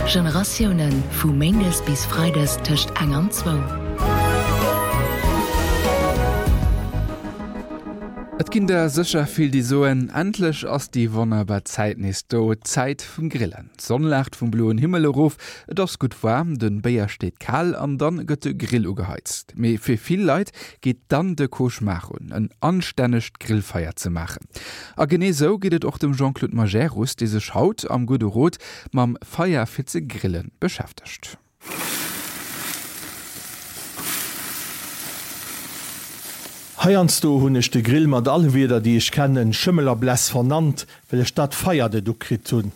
Generatiounen, vu méindes bis freides tëscht eng an zwou. Et ginn der sécher vill, déi soen, Endlech ass déi wonnerbar Zäit nees do, d'Zäit vum Grillen. D'Sonn laacht vum bloen Himmel erof, et ass gutt waarm, de Béier steet kal an dann gëtt de Grill ugeheizt. Mee fir vill Leit geet dann de Cauchemar un, en anstännegt Grillfeier ze maachen. A genee sou geet et och dem Jean-Claude Majerus, dee sech haut am Gudde Rot mam Feier fir ze grillen beschäftegt. Heiansdo hunn ech de Grill mat alle Wierder déi ech kennen, Schëmmel a Bless vernannt, well ech dat Feier net ukritt hunn.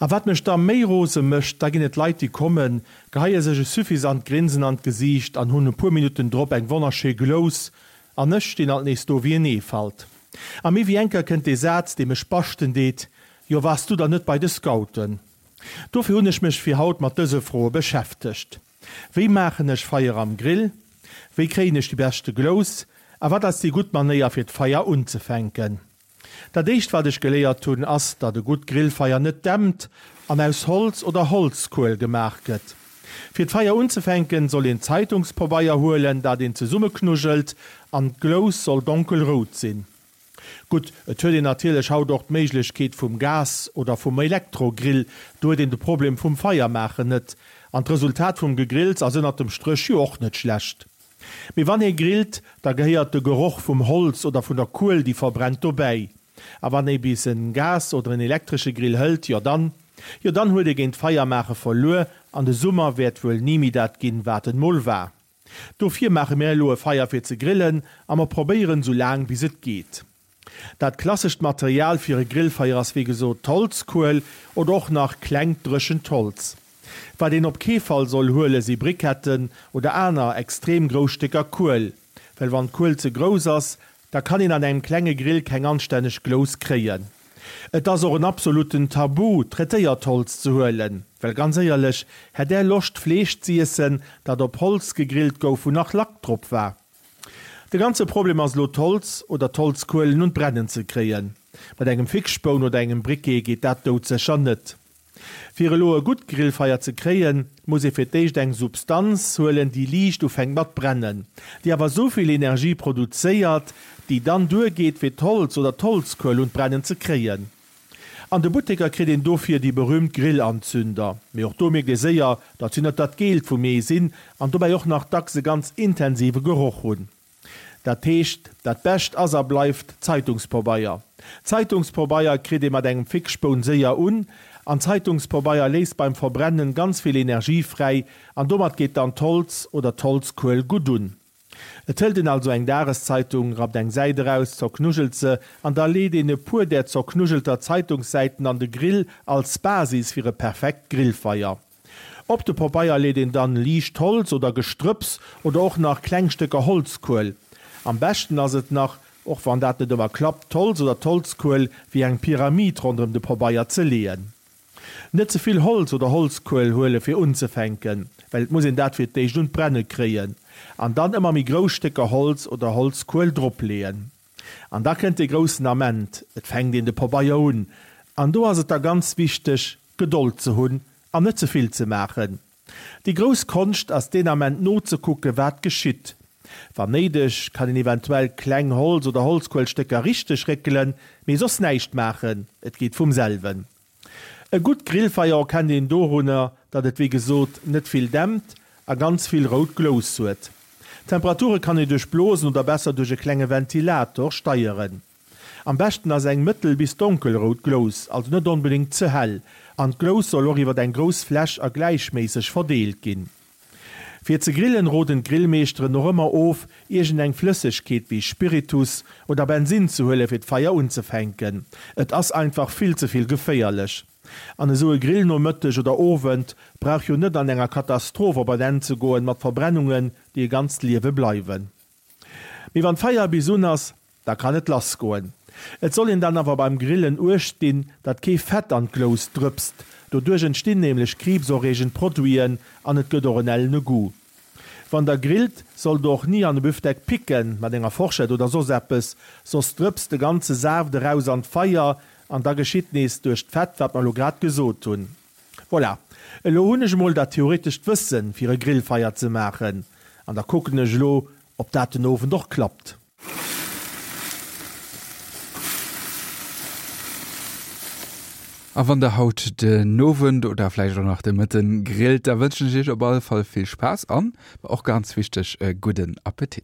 A wat mech da méi rose mécht, da ginn et Leit déi kommen, geheie sech e suffisant Grinsen an d'Gesiicht an hunn e puer Minutten drop eng wonnerschéi Glous, an ech stinn alt nees do wéi en Eefalt. A méi wéi eng Kéier kënnt dee Saz, dee mech baschten deet, Jo, waars du dann net bei de Scouten? Dofir hunn ech mech fir haut mat dëse Froe beschäftegt, Wéi maachen ech Feier am Grill? Wéi kréien ech déi beschte Glous? A wat ass déi gutt Manéier fir d'Feier unzefänken? Dat éischt wat ech geléiert hunn ass, datt e gutt Grillfeier net dämpt an aus Holz oder Holzkuel gemaach gëtt. Fir d'Feier unzefänken soll een Zeitungspobeier huelen, dat een zesummeknuggelt an d'Glous soll donkelrout sinn. Gutt, et huet een natierlech haut och d'Méiglechkeet vum Gas oder vum Elektrogrill, do huet een de Problem vum Feier maachen net. An d'Resultat vum Gegrills ass ënnert dem Stréch jo och net schlecht. Mee wann ee grillt, da gehéiert de Geroch vum Holz oder vun der Kuel déi verbrennt dobäi. A wann ee bis en Gas oder en elektresche Grill hëlt, jo dann, jo dann huet ee géint Feier maache verluer an de Summer wäert wuel ni méi dat ginn, wat en mol war. Dofir maache mir elo e Feier fir ze grillen a mer probéieren sou laang bis et geet. Dat klassescht Material fir e Grillfeier ass wéi gesot d'Holzkuel oder och nach klengt dréchent Holz. Wat een op kee Fall soll huele si Briketten oder aner extrem grouss Stécker Kuel, well wann d'Kuel ze grouss ass, da kann een an engem klenge Grill keng anstänneg Glous kréien. Et ass och en absoluten Tabu, traitéiert Holz ze huelen, well ganz éierlech, hätt Är Loscht Fleesch z'iessen, dat op Holz gegrillt gouf, wou nach Lack drop war? De ganze Problem ass elo d'Holz oder d'Holzkuelen un d'Brennen ze kréien. Mat engem Fixspoun oder engem Briquet geet dat doudsécher net. Fir elo e gutt Grillfeier ze kréien, muss ee fir d'éischt eng Substanz huelen, déi liicht ufänkt mat brennen, déi awer souvill Energie produzéiert, déi dann duergeet fir d'Holz oder d'Holzkuel un d'Brennen ze kréien. An de Butteker kritt een dofir déi berühmt Grillanzünder, mee och do mierkt ee séier, datt si net dat Geelt vum Ee sinn an dobäi och nach dacks e ganz intensive Geroch hunn. Dat heescht, dat Bescht ass a bleift Zeitungspobeier. Zeitungspobeier kritt ee mat engem Fixspoun séier un, an Zeitungspobeier léist beim Verbrennen ganz vill Energie fräi, an domat geet dann d'Holz oder d'Holzkuel gutt un. Et hëlt een also eng Dageszeitung, rappt eng Säit eraus, zerknuggelt se, an da leet een e puer där zerknuggelter Zeitungssäiten an de Grill als Basis fir e perfekt Grillfeier. Op de Pobeier leet een dann liicht Holz oder Gestrëpps oder och nach kleng Stécker Holzkuel. Am beschten ass et nach, och wann dat net ëmmer klappt, d'Holz oder d'Holzkuel wéi eng Pyramid ronderëm de Pobeier ze leeën. Net ze vill Holz oder Holzkuel huele fir unzefänken, well et muss een dat fir d'éischt un d'Brenne kréien, an dann ëmmer méi grouss Stécker Holz oder Holzkuel drop leeën. An da kënnt dee groussen Ament, et fänkt een de Pobeier un, an do ass et da ganz wichteg, Gedold ze hunn an net ze vill ze maachen. Déi grouss Konscht ass deen Ament nozekucke wat geschitt. Wann néideg kann een eventuell kleng Holz oder Holzkuelstécker richteg réckelen, mee soss näischt maachen, et geet vum selwen. E gutt Grillfeier erkennt een dorunner, datt et wéi gesot net vill dämpt a ganz vill rout Glous huet. D'Temperature kann ee duerch Blosen oder besser duerch e klenge Ventilator steieren. Am beschten ass eng mëttel bis donkelrout Glous, also net onbedéngt ze hell, an d'Glous soll och iwwer eng grouss Fläch a gläichméisseg verdeelt ginn. Fir ze grillen roden d'Grillmeeschteren och ëmmer of, iergend eng Flëssegkeet wéi Spiritus oder Bensin ze huele fir d'Feier unzefänken. Et ass einfach vill ze vill geféierlech. An esou e Grillnomëtteg oder Owend brauch jo net an enger Katastroph op en Enn ze goen mat Verbrennungen, déi e ganzt Liewe bleiwen. Mee wann d'Feier bis un ass, da kann et lass goen. Et soll een dann awer beim Grillen uecht dinn, datt kee Fett an d'Glous drëpst, doduerch entstinn nämlech kriibserreegend Produiten an et gëtt och en ellene Goût. Wann der grillt, sollt der och ni an e Büfdeck picken, mat enger Forschett oder soss eppes, soss drëpst de ganze Saaft eraus an d'Feier an da geschitt nees duerch d'Fett wat mer elo grad gesot hunn. Voilà, elo hunn ech emol dat theoretescht Wëssen fir e Grillfeier ze maachen an da kucken ech elo ob dat den Owend och klappt. A wann der haut den Owend oder vläicht och nach de Mëtten grillt, da wënschen ech iech op alle Fall vill Spaass an, och ganz wichteg, e gudden Appetit.